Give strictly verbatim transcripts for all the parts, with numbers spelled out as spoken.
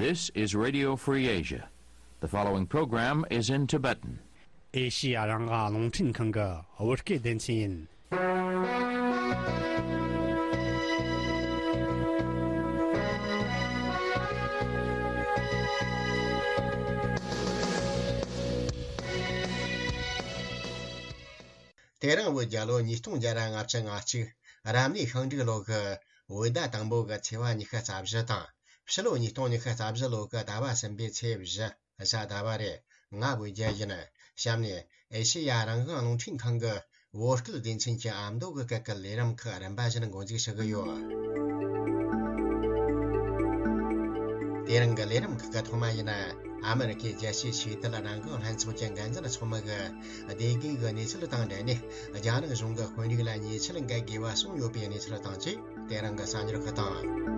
This is Radio Free Asia. The following program is in Tibetan. ཨེ་ཤི་ཡ་རང་དབང་རླུང་འཕྲིན་ཁང་གི་བོད་སྐད་སྡེ་ཚན་ཡིན། དེ་རིང་བོད་རྒྱལ་ལོ་ཉིས་སྟོང་བརྒྱ་ར་ལྔ་བཅུ་ང་གཅིག་རབ་གནས་ཤིང་འབྲུག་ལོ་གི་བོད་ཟླ་དང་པོ་གི་ཚེས་པ་ཉི་ཤུ་རྩ་བཞི་དང་། ཕྱི་ལོ་ཉིས་སྟོང་ཉི་ཤུ་རྩ་བཞི་ལོ་གི་ཟླ་བ་གསུམ་པའི་ཚེས་བཞི། གཟའ་ཟླ་བ་རེད། ང་བོད་རྒྱལ་ཡིན། གཤམ་ནས་ཨེ་ཤེ་ཡ་རང་དབང་རླུང་འཕྲིན་ཁང་གི་བོད་སྐད་སྡེ་ཚན་གྱི་ཨ་མདོ་གི་སྐད་ཀྱི་ལས་རིམ་ཁག་རིམ་པ་བཞིན་འགོ་འཛུགས་ཞུ་གི་ཡོད། དེ་རིང་གི་ལས་རིམ་ཁག་གི་ཐོག་མ་ཡིན་ན། ཨ་མེ་རི་ཁའི་རྒྱལ་སྤྱིའི་ཆོས་དད་རང་དབང་ལྷན་ཚོགས་ཀྱི་འགན་འཛིན་ཚོགས་མི་གི་བདེ་སྐྱིད་ཀྱི་གནས་ཚུལ་དང་འབྲེལ་ནས། རྒྱ་ནག་གཞུང་གི་དཔོན་རིགས་ལ་ཉེས་ཆད་འགེལ་དགོས་པ་གསུངས་ཡོད་པའི་གནས་ཚུལ་དང་བཅས། དེ་རིང་གི་གསར་འགྱུར་ཁག་དང་།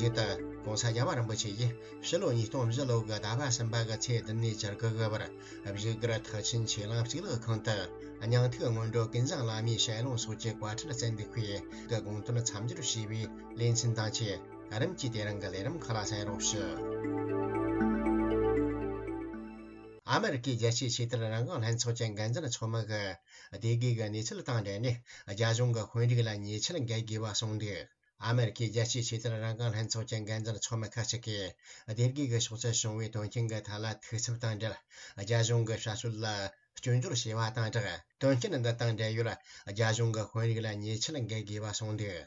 མཇུག་ཏུ་༸གོང་ས་༸རྒྱལ་བ་རིན་པོ་ཆེ་ཡིས་ཕྱི་ལོ་ཉིས་སྟོང་བཞི་ལོ་གི་ཟླ་བ་གསུམ་པ་གི་ཚེས་བདུན་ནས་བཅུ་དགུ་གི་བར། བཞུགས་སྒར་ཐེག་ཆེན་ཆོས་གླིང་གཙུག་ལག་ཁང་དུ་སྙིང་ཐིག་སྔོན་འགྲོ་ཀུན་བཟང་བླ་མའི་ཞལ་ལུང་སོགས་ཀྱི་བཀའ་ཁྲིད་བསྩལ་འདུག་པས། གི་དགོངས་དོན་མཚམས་སྦྱོར་བྱས་པའི་ལེ་ཚན་དང་བཅས། རིམ་གྱིས་དེ་རིང་གི་ལས་རིམ་ཁག་ལ་གསན་རོགས་ཞུ། ཨ་མེ་རི་ཁའི་རྒྱལ་སྤྱིའི་ཆོས་དད་རང་དབང་ལྷན་ཚོགས་ཀྱི་འགན་འཛིན་ཚོགས་མི་གི་བདེ་དགེ་གི་གནས་ཚུལ་དང་འབྲེལ་ནས། རྒྱ་གཞུང་གི་དཔོན་རིགས་ལ་ཉེས་ཆད་འགེལ་དགོས་པ་གསུངས་འདུག་ཨ་མེ་རི་ཁའི་རྒྱལ་སྤྱིའི་ཆོས་དད་རང་དབང་ལྷན་ཚོགས་ཀྱི་འགན་འཛིན་ཚོགས་མི་ཁག་ཅིག་གིས། བདེ་དགེ་གི་ཕྱོགས་སུ་བྱུང་བའི་དོན་རྐྱེན་གྱི་ཐད་ལ་ཐུགས་འཚབ་དང་འབྲེལ། རྒྱ་གཞུང་གི་བྱ་སྤྱོད་ལ་སྐྱོན་བརྗོད་བྱས་པ་དང་སྦྲགས། དོན་རྐྱེན་འདི་དང་འབྲེལ་ཡོད་རྒྱ་གཞུང་གི་དཔོན་རིགས་ལ་ཉེས་ཆད་འགེལ་དགོས་པ་གསུངས་འདུག་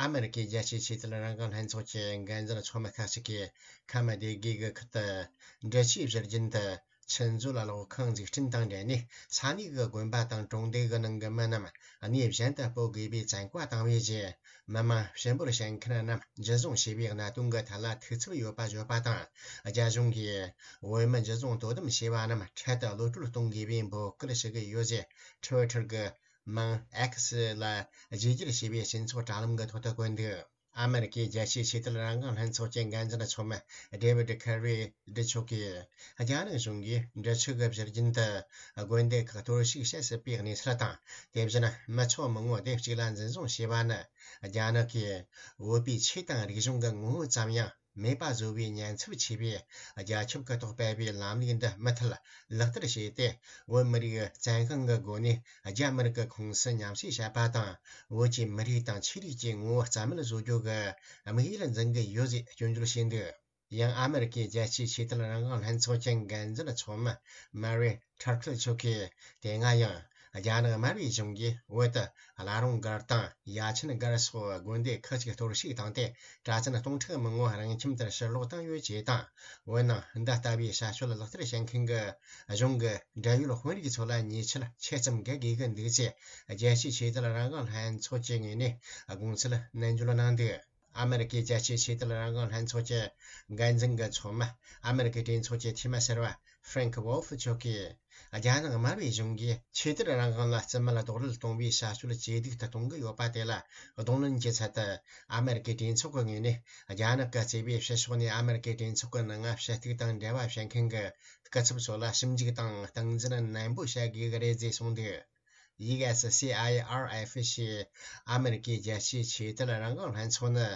ཨ་མེ་རི་ཁའི་རྒྱལ་སྤྱིའི་ཆོས་དད་རང་དབང་ལྷན་ཚོགས་ཀྱི་འགན་འཛིན་ཚོགས་མི་ཁག་ཅིག་གིས་ཁམས་སྡེ་དགེ་གི་ཁུལ་དུ་འབྲི་ཆུའི་བཞུར་རྒྱུན་དུ་ཆུ་མཛོད་གློག་ཁང་འཛུགས་སྐྲུན་དང་འབྲེལ་ནས། ས་གནས་ཀྱི་དགོན་པ་དང་གྲོང་སྡེ་གི་ནང་གི་མི་རྣམས་གནས་གཞན་དུ་སྤོ་དགོས་པའི་བཙན་བཀའ་བཏང་བའི་རྗེས། མི་མང་ཕྱི་འབོར་བྱེད་མཁན་རྣམས་འཇུ་བཟུང་བྱས་པའི་གནད་དོན་གྱི་ཐད་ལ་ཐུགས་འཚབ་ཡོད་པ་བརྗོད་པ་དང་། རྒྱ་གཞུང་གིས་བོད་མི་འཇུ་བཟུང་དོ་དམ་བྱས་པ་རྣམས་འཕྲལ་དུ་གློད་བཀྲོལ་གཏོང་དགོས་པའི་འབོད་སྐུལ་ཞུ་གི་ཡོད་ཅེས་ཊི་ཝི་ཊར་གྱི་མིང་ཨེག་སི་ལ་བརྗེ་བསྒྱུར་བྱས་པའི་སྤྱི་ཚོགས་དྲ་ལམ་གྱི་ཐོག་ཏུ་བཀོད་འདུག་ཨ་མེ་རི་ཁའི་རྒྱལ་སྤྱིའི་ཆོས་དད་རང་དབང་ལྷན་ཚོགས་ཀྱི་འགན་འཛིན་ཚོགས་མི་ཌེ་བིད་ཁེ་རི་ཌི་མཆོག་གིས། རྒྱ་ནག་གཞུང་གིས་འབྲི་ཆུ་གི་བཞུར་རྒྱུན་དུ་དགོན་སྡེ་ཁག་གཏོར་བཤིག་བྱེད་སྲིད་པའི་གནས་ཚུལ་དང་། དེ་བཞིན་མི་ཚོགས་མང་པོ་སྡེ་གཅིག་ལ་འཛིན་བཟུང་བྱས་པ་ནི། རྒྱ་ནག་གིས་བོད་པའི་ཆོས་དང་རིག་གཞུང་གི་ངོ་བོ་ཙམ་ཡང་མེད་པ་བཟོ་བའི་ཉེན་ཚབས་ཆེ་བས། རྒྱ་ཁྱབ་ཀྱི་ཐོག་སྤེལ་བའི་ལམ་ལུགས་འདི་མུ་མཐུད་ལག་བསྟར་བྱས་ཏེ། བོད་མི་རིགས་བཙན་དབང་གི་སྒོ་ནས་རྒྱ་མི་རིགས་ཀྱི་ཁོངས་སུ་མཉམ་བསྲེས་བྱེད་པ་དང་། བོད་ཀྱི་མི་རིགས་དང་ཆོས་ལུགས་ཀྱི་ངོ་བོ་རྩ་མེད་བཟོ་རྒྱུ་གི་དམིགས་ཡུལ་འཛིན་གྱི་ཡོད་ཅེས་སྐྱོན་བརྗོད་བྱས་འདུག་ཡང་ཨ་མེ་རི་ཁའི་རྒྱལ་སྤྱིའི་ཆོས་དད་རང་དབང་ལྷན་ཚོགས་ཀྱི་འགན་འཛིན་ཚོགས་མི་མ་རི་ཐར་ཁིལ་མཆོག་གིས། དེ་སྔ་ཡང་རྒྱ་ནག་དམར་པོའི་གཞུང་གིས་བོད་དུ་བླ་རུང་སྒར་དང་ཡ་ཆེན་སྒར་སོགས་དགོན་སྡེ་ཁག་ཅིག་གཏོར་བཤིག་བཏང་སྟེ། གྲྭ་བཙུན་སྟོང་ཕྲག་མང་པོ་རང་ཁྱིམ་དུ་ཕྱིར་ལོག་བཏང་ཡོད་ཅེས་དང་། འོན་ཀྱང་འདི་ལྟ་བུའི་བྱ་སྤྱོད་ལག་བསྟར་བྱེད་མཁན་གྱི་གཞུང་གི་འབྲེལ་ཡོད་དཔོན་རིགས་ཚོ་ལ་ཉེས་ཆད་ཆེ་ཙམ་འགེལ་དགོས་ཀྱི་འདུག་ཅེས། རྒྱལ་སྤྱིའི་ཆོས་དད་རང་དབང་ལྷན་ཚོགས་ཀྱི་ངོས་ནས་དགོངས་ཚུལ་ནན་བརྗོད་གནང་འདུག་ཨ་མེ་རི་ཀའི་རྒྱལ་སྤྱིའི་ཆོས་དད་རང་དབང་ལྷན་ཚོགས་ཀྱི་འགན་འཛིན་གྱི་ཚོགས་མི། ཨ་མེ་རི་ཀའི་གྲོས་ཚོགས་ཀྱི་འཐུས་མི་ཟུར་པ་ཧྥྲེང་ཝོལ་ཧྥི་མཆོག་གིས། རྒྱ་ནག་དམར་པོའི་གཞུང་གིས་ཆོས་དད་རང་དབང་ལ་རྩིས་མེད་རྡོག་རོལ་གཏོང་བའི་བྱ་སྤྱོད་ཇེ་སྡུག་ཏུ་གཏོང་གི་ཡོད་པ་དེ་ལ་གདོང་ལེན་གྱི་ཚུལ་དུ། ཨ་མེ་རི་ཀའི་གྲོས་ཚོགས་ཀྱི་ངོས་ནས། རྒྱ་ནག་གི་གཙོས་པའི་ཕྱི་ཕྱོགས་ནས་ཨ་མེ་རི་ཀའི་གྲོས་ཚོགས་ཀྱི་ནང་ང་ཞུ་གཏུག་དང་འབྲེལ་བ་བྱེད་མཁན་གྱི་སྐུ་ཚབ་ཚོ་ལ་ཞིབ་འཇུག་དང་སྟངས་འཛིན་ནན་པོ་བྱ་དགོས་ཀྱི་རེད་ཅེས་གསུངས་འདུག་ཡུ་ཨེས་སི་ཨའི་ཨར་ཨེཕ་ཞེས་ཨ་མེ་རི་ཀའི་རྒྱལ་སྤྱིའི་ཆོས་དད་རང་དབང་ལྷན་ཚོགས་ནི།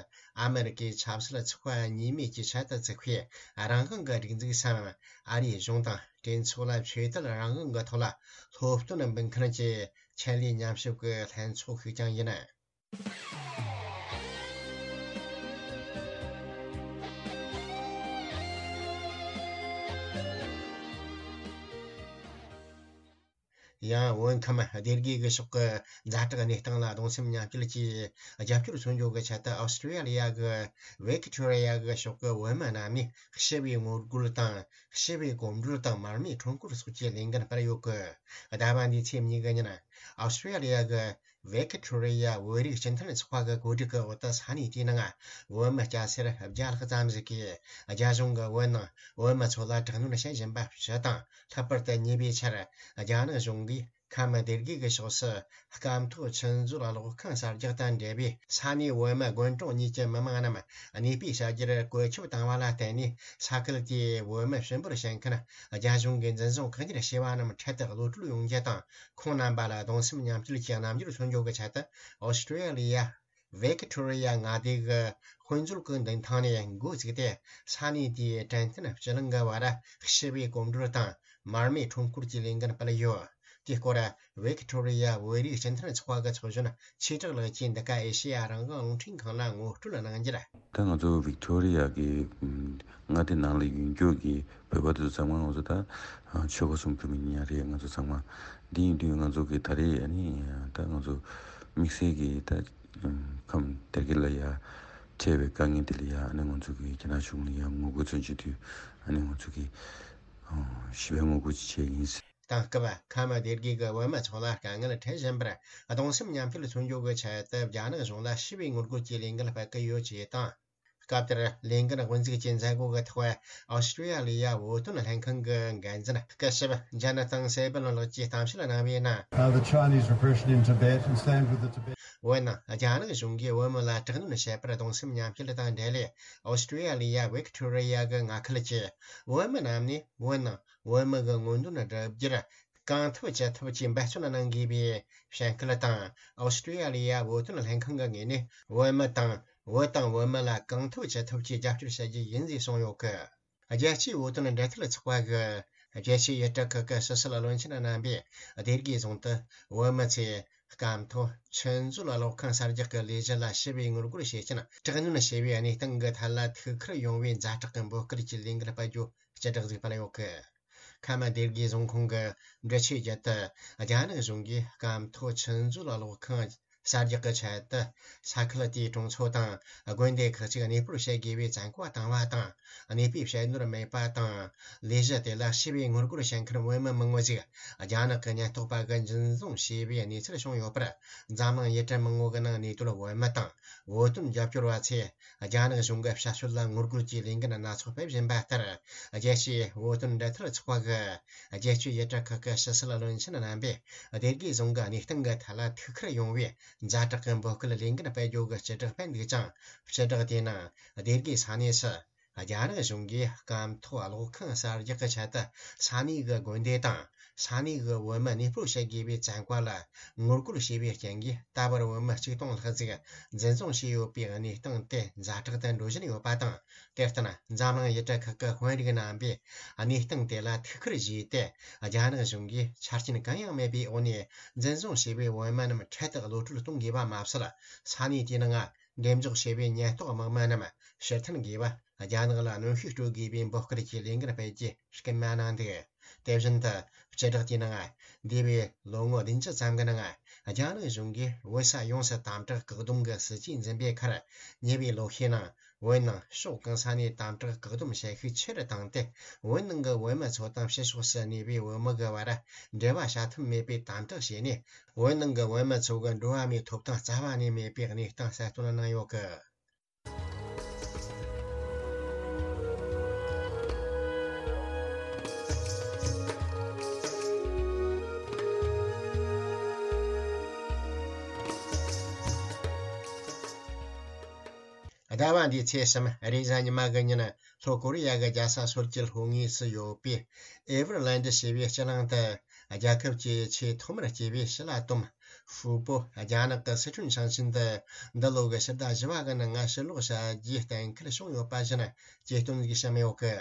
ཨ་མེ་རི་ཀའི་ཆབ་སྲིད་ཚོགས་པ་གཉིས་མོས་ཀྱི་ཆེད་དུ་བཙུགས་པའི་རང་དབང་གི་སྒྲིག་འཛུགས་སམ། ཨ་རིའི་གཞུང་དང་གྲོས་ཚོགས་ལ་ཆོས་དད་རང་དབང་གི་ཐོག་ལ་སློབ་སྟོན་འབུལ་མཁན་གྱི་ཆེད་ལས་ཉམས་ཞིབ་ཀྱི་ལྷན་ཚོགས་ཤིག་ཀྱང་ཡིན། ཡང་བོད་ཁམས་སྡེ་དགེ་གི་ཕྱོགས་ཀྱི་ཛ་དྲག་གནས་སྟངས་ལ་གདུང་སེམས་མཉམ་སྐྱེད་ཀྱིས་རྒྱབ་སྐྱོར་མཚོན་རྒྱུ་གི་ཆེད་དུ། ཨོ་སི་ཀྲི་ཡ་ལི་ཡ་གི་ཝི་ཀི་ཐོ་རི་ཡ་གི་ཕྱོགས་ཀྱི་བོད་མི་རྣམས་ནས་ཞི་བའི་ངོ་རྒོལ་དང་ཞི་བའི་གོམ་བགྲོད་དང་མར་མེའི་ཁྲོམ་སྐོར་སོགས་ཀྱི་ལས་འགན་སྤེལ་ཡོད་སྐད། ཟླ་བ་འདིའི་ཚེས་གཉིས་ཀྱི་ཉིན། ཨོ་སི་ཀྲི་ཡ་ལི་ཡ་གི་ཝི་ཀི་ཐོ་རི་ཡ་བོད་རིགས་སྤྱི་མཐུན་ཚོགས་པ་གི་གོ་སྒྲིག་གི་འོག་ཏུ་ས་གནས་དེའི་ནང་བོད་མི་སྐྱ་སེར་བརྒྱ་ལྷག་ཙམ་ཞིག་གིས་རྒྱ་གཞུང་གིས་བོད་ནང་བོད་མི་ཚོ་ལ་དྲག་གནོན་བྱེད་བཞིན་པ་ཞུ་དང་། ལྷག་པར་དུ་ཉེ་བའི་ཆར་རྒྱ་ནག་གཞུང་གིས་ཁམས་སྡེ་དགེ་གི་ཕྱོགས་སུ་སྐམ་ཐོག་ཆུ་མཛོད་གློག་ཁང་གསར་རྒྱག་དང་འབྲེལ་བའི་ས་གནས་བོད་མི་དགོན་གྲོང་གཉིས་ཀྱི་མི་མང་རྣམས་གནས་སྤོས་བྱ་རྒྱུར་བཀོད་ཁྱབ་བཏང་བ་ལ་བརྟེན་ནས། ས་ཁུལ་དེའི་བོད་མི་ཞིབ་འབུར་བྱེད་མཁན་རྒྱ་གཞུང་གིས་འཛིན་བཟུང་བཀག་ཉར་བྱས་པ་རྣམས་འཕྲལ་དུ་གློད་བཀྲོལ་ཡོང་རྒྱུ་དང་། ཁོང་རྣམ་པ་ལ་གདུང་སེམས་མཉམ་སྐྱེད་ཀྱི་རྣམ་འགྱུར་མཚོན་རྒྱུ་གི་ཆེད་དུ། ཨོ་སི་ཀྲི་ཡ་ལི་ཡ། ཝེ་ཀི་ཐོ་རི་ཡ་མངའ་སྡེ་གི་དཔེ་མཛོད་ཀྱི་མདུན་ཐང་ནས་འགོ་བཙུགས་ཏེ། ས་གནས་དེའི་དྲན་རྟེན་སྤྱི་གླིང་གི་བར་ཞི་བའི་གོམ་བགྲོད་དང་མར་མེའི་ཁྲོམ་སྐོར་གྱི་ལས་འགུལ་སྤེལ་ཡོད། དེའི་སྐོར་ཝེ་ཀི་ཐོ་རི་ཡ་བོད་རིགས་སྤྱི་མཐུན་ཚོགས་པ་གི་ཚོགས་གཞོན་ཆོས་གྲགས་ལགས་ཀྱིས་འདི་ག་ཨེ་ཤེ་ཡ་རང་དབང་རླུང་འཕྲིན་ཁང་ལ་ངོ་སྤྲོད་གནང་རྒྱུར། ད་ང་ཚོ་ཝིག་ཐོ་རི་ཡ་གི་མངའ་སྡེ་ནང་ལ་ཡོད་རྒྱུ་གི་བོད་པ་དེ་ཚོ་ཚང་མ་ང་ཚོ་ད་ཆོལ་ཁ་གསུམ་བོད་མི་ཉག་རེད། ང་ཚོ་ཚང་མ་འདི་ཡིན་དུས་ང་ཚོ་གི་ད་རེས་ཨ་ནི་ད་ང་ཚོ་དམིགས་བསལ་གི་ད་ཁམས་དེར་གི་ལ་ཡ་འཕྲད་པའི་དཀའ་ངལ་དེ་ལ་ཡ་ཨ་ནི་ང་ཚོ་གི་རྒྱ་ནག་གཞུང་ལ་ཡ་ངོ་རྒོལ་ཚོན་བྱེད་དུས་ཨ་ནི་ང་ཚོ་གི་ཞི་བའི་ངོ་རྒོལ་ཅིག་བྱས་ཡིན། དེང་སྐབས་ཁམས་སྡེ་དགེ་གི་བོད་མི་ཚོ་ལ་དཀའ་ངལ་འཕྲད་བཞིན་པར་གདུང་སེམས་མཉམ་སྐྱེད་མཚོན་རྒྱུ་གི་ཆེད་དུ་རྒྱ་ནག་གཞུང་ལ་ཞི་བའི་ངོ་རྒོལ་གྱི་ལས་འགུལ་སྤེལ་གི་ཡོད་ཅེས་དང་། སྐབས་དེར་ལས་འགུལ་དབུ་འཛུགས་ཀྱི་མཛད་སྒོ་གི་ཐོག་ཨོ་སི་ཀྲི་ཡ་ལི་ཡ་བོད་དོན་ལྷན་ཁང་གི་འགན་འཛིན་སྐུ་ཞབས་ཇ་ན་ཐང་སེ་བན་ལགས་ཀྱིས་གཏམ་བཤད་གནང་བའི་ནང་། Uh, the Chinese repression in Tibet and stand with the Tibet. བོད་ནང་རྒྱ་ནག་གཞུང་གིས་བོད་མི་ལ་དྲག་གནོན་བྱས་པར་གདུང་སེམས་མཉམ་སྐྱེད་དང་འབྲེལ་ནས་ཨོ་སི་ཀྲི་ཡ་ལི་ཡ་ཝིག་ཐོ་རི་ཡ་གི་མངའ་ཁུལ་གྱི་བོད་མི་རྣམས་ནས་བོད་ནང་བོད་མི་གི་མངོན་འདོད་བསྒྲུབ་རྒྱུར་གང་ཐུབ་ཅི་ཐུབ་ཀྱིས་འབད་བརྩོན་གནང་དགོས་པའི་བཤད་སྐུལ་དང་། ཨོ་སི་ཀྲི་ཡ་ལི་ཡ་བོད་དོན་ལྷན་ཁང་གི་ངོས་ནས་བོད་མི་དང་བོད་དང་བོད་མི་ལ་གང་ཐུབ་ཅི་ཐུབ་ཀྱིས་རྒྱབ་སྐྱོར་བྱ་རྒྱུ་ཡིན་ཞེས་གསུངས་ཡོད་སྐད། རྒྱལ་སྤྱིའི་བོད་དོན་འབྲེལ་མཐུད་ཚོགས་པ་གི་རྒྱལ་སྤྱིའི་ཡུལ་གྲུ་ཁག་གི་ཕྱི་སྲིད་བློན་ཆེན་རྣམ་པས་སྡེ་དགེ་རྫོང་དུ་བོད་མི་ཚོས་སྐམ་ཐོག་ཆུ་མཛོད་གློག་ཁང་གསར་རྒྱག་གི་ལས་གཞི་ལ་ཞི་བའི་ངོ་རྒོལ་བྱེད་ཀྱིན་དྲག་གནོན་བྱས་པའི་གནས་སྟངས་ཀྱི་ཐད་ལ་ཐུགས་ཁུར་ཡོང་བའི་ཛ་དྲག་གི་འབོད་སྐུལ་གྱི་ལས་འགུལ་སྤེལ་རྒྱུ་སྤྱི་བསྒྲགས་ཤིག་སྤེལ་ཡོད་སྐད། ཁམས་སྡེ་དགེ་རྫོང་ཁོངས་ཀྱི་འབྲི་ཆུའི་རྒྱུད་དུ་རྒྱ་ནག་གཞུང་གིས་སྐམ་ཐོག་ཆུ་མཛོད་གློག་ཁང་གསར་རྒྱག་གི་ཆེད་དུ་ས་ཁུལ་དེའི་གྲོང་ཚོ་དང་དགོན་སྡེ་ཁག་ཅིག་གནས་སྤོར་བྱེད་དགོས་པའི་བཙན་བཀའ་བཏང་བ་དང་། གནས་སྤོས་བྱེད་ནོར་མེད་པ་དང་། ལས་གཞི་དེ་ལ་ཞི་བའི་ངོ་རྒོལ་བྱེད་མཁན་བོད་མི་མང་བོ་ཞིག་རྒྱ་ནག་གི་ཉེན་རྟོག་པ་གིས་འཛིན་བཟུང་བྱས་པའི་གནས་ཚུལ་བྱུང་ཡོད་པར། འཛམ་གླིང་ཡུལ་གྲུ་མང་བོ་གི་ནང་གནས་སྡོད་བོད་མི་དང་བོད་དོན་རྒྱབ་སྐྱོར་བ་ཚོས། རྒྱ་ནག་གཞུང་གི་བྱ་སྤྱོད་ལ་ངོ་རྒོལ་གྱི་ལས་འགུལ་སྣ་ཚོགས་སྤེལ་བཞིན་པ་ལྟར། རྒྱལ་སྤྱིའི་བོད་དོན་འབྲེལ་མཐུད་ཚོགས་པ་གི་རྒྱལ་སྤྱིའི་ཡུལ་གྲུ་ཁག་གི་ཕྱི་སྲིད་བློན་ཆེན་རྣམ་པས་སྡེ་དགེ་རྫོང་གི་གནས་སྟངས་ཀྱི་ཐད་ལ་ཐུགས་ཁུར་ཡོང་བའི་ཛ་དྲག་གི་འབོད་སྐུལ་ལས་འགུལ་སྤེལ་རྒྱུ་གི་སྤྱི་བསྒྲགས་སྤེལ་འདུག་ཅིང་། སྤྱི་བསྒྲགས་དེའི་ནང་སྡེ་དགེ་ས་གནས་སུ་རྒྱ་ནག་གཞུང་གིས་སྐམ་ཐོག་གློག་ཁང་གསར་རྒྱག་གི་ཆེད་དུ་ས་གནས་ཀྱི་དགོན་སྡེ་དང་། ས་གནས་ཀྱི་བོད་མི་གནས་སྤོར་བྱེད་དགོས་པའི་བཙན་བཀའ་ལ་ངོ་རྒོལ་བྱས་པའི་རྐྱེན་གྱིས། ད་བར་བོད་མི་ཆིག་སྟོང་ལྷག་ཅིག་འཛིན་བཟུང་བྱས་ཡོད་པའི་གནས་སྟངས་དེ་ཛ་དྲག་ཏུ་འགྲོ་བཞིན་ཡོད་པ་དང་། དེར་བརྟེན། འཛམ་གླིང་ཡུལ་གྲུ་ཁག་གི་དཔོན་རིགས་རྣམ་པས་གནས་སྟངས་དེ་ལ་ཐུགས་ཁུར་བཞེས་ཏེ། རྒྱ་ནག་གཞུང་གིས་ཆ་རྐྱེན་གང་ཡང་མེད་པའི་འོག་ནས་འཛིན་བཟུང་བྱས་པའི་བོད་མི་རྣམས་འཕྲལ་དུ་གློད་བཀྲོལ་གཏོང་དགོས་པ་མ་ཟད། ས་གནས་དེའི་ནང་འགྲེམས་འཇོག་བྱས་པའི་ཉེན་རྟོག་དམག་མི་རྣམས་ཕྱིར་འཐེན་དགོས་པ། རྒྱ་ནག་ལ་གནོན་ཤུགས་སྤྲོད་དགོས་པའི་འབོད་སྐུལ་གྱི་ལས་འགུལ་སྤེལ་རྒྱུ་སྐུལ་མ་གནང་འདུག་དེ་བཞིན་དུ། སྤྱི་བསྒྲགས་དེའི་ནང་། འདས་པའི་ལོ་ངོ་བདུན་ཅུ་ཙམ་གྱི་ནང་། རྒྱ་ནག་གཞུང་གིས་བོད་ས་ཡོངས་སུ་དམ་དྲག་བཀག་སྡོམ་གྱི་སྲིད་ཇུས་འཛིན་པའི་ཁར། ཉེ་བའི་ལོ་ཤས་ནང་། བོད་ནང་ཕྱོགས་གང་ས་ནས་དམ་དྲག་བཀག་སྡོམ་བྱེད་ཤུགས་ཆེ་རུ་བཏང་སྟེ། བོད་ནང་གི་བོད་མི་ཚོ་དང་ཕྱི་ཕྱོགས་སུ་གནས་པའི་བོད་མི་གི་བར། འབྲེལ་བ་བྱ་ཐབས་མེད་པའི་དམ་དྲག་བྱས་ནས། བོད་ནང་གི་བོད་མི་ཚོ་གི་འགྲོ་བ་མིའི་ཐོབ་ཐང་རྩ་བ་ནས་མེད་པའི་གནས་སྟངས་གསལ་སྟོན་གནང་ཡོད་གི། ཟླ་བ་འདིའི་ཚེས་གསུམ་རེས་གཟའ་ཉི་མ་གི་ཉིན། ལྷོ་ཀོ་རི་ཡ་གི་རྒྱལ་ས་སོལ་གྱི་ལྷོ་ངོས་སུ་ཡོད་པའི་ཨེ་ཝར་ལན་ཌི་ཞེས་པའི་སྤྱི་གླིང་དུ། རྒྱལ་ཁབ་ཀྱི་ཆེས་ཐོག་མར་སྐྱེས་པའི་ཞི་ལ་ཏོམ་ཧྥུ་པོ་རྒྱ་ནག་གི་སི་ཁྲོན་ཞིང་ཆེན་དུ་འདི་ལོ་གི་ཕྱི་ཟླ་བཞི་བ་གི་ནང་ཕྱིར་ལོག་བྱ་རྒྱུའི་གཏན་འཁེལ་བྱུང་ཡོད་པ་བཞིན་གྱེར་འདོན་གྱིས་བཤམས་ཡོད་གི།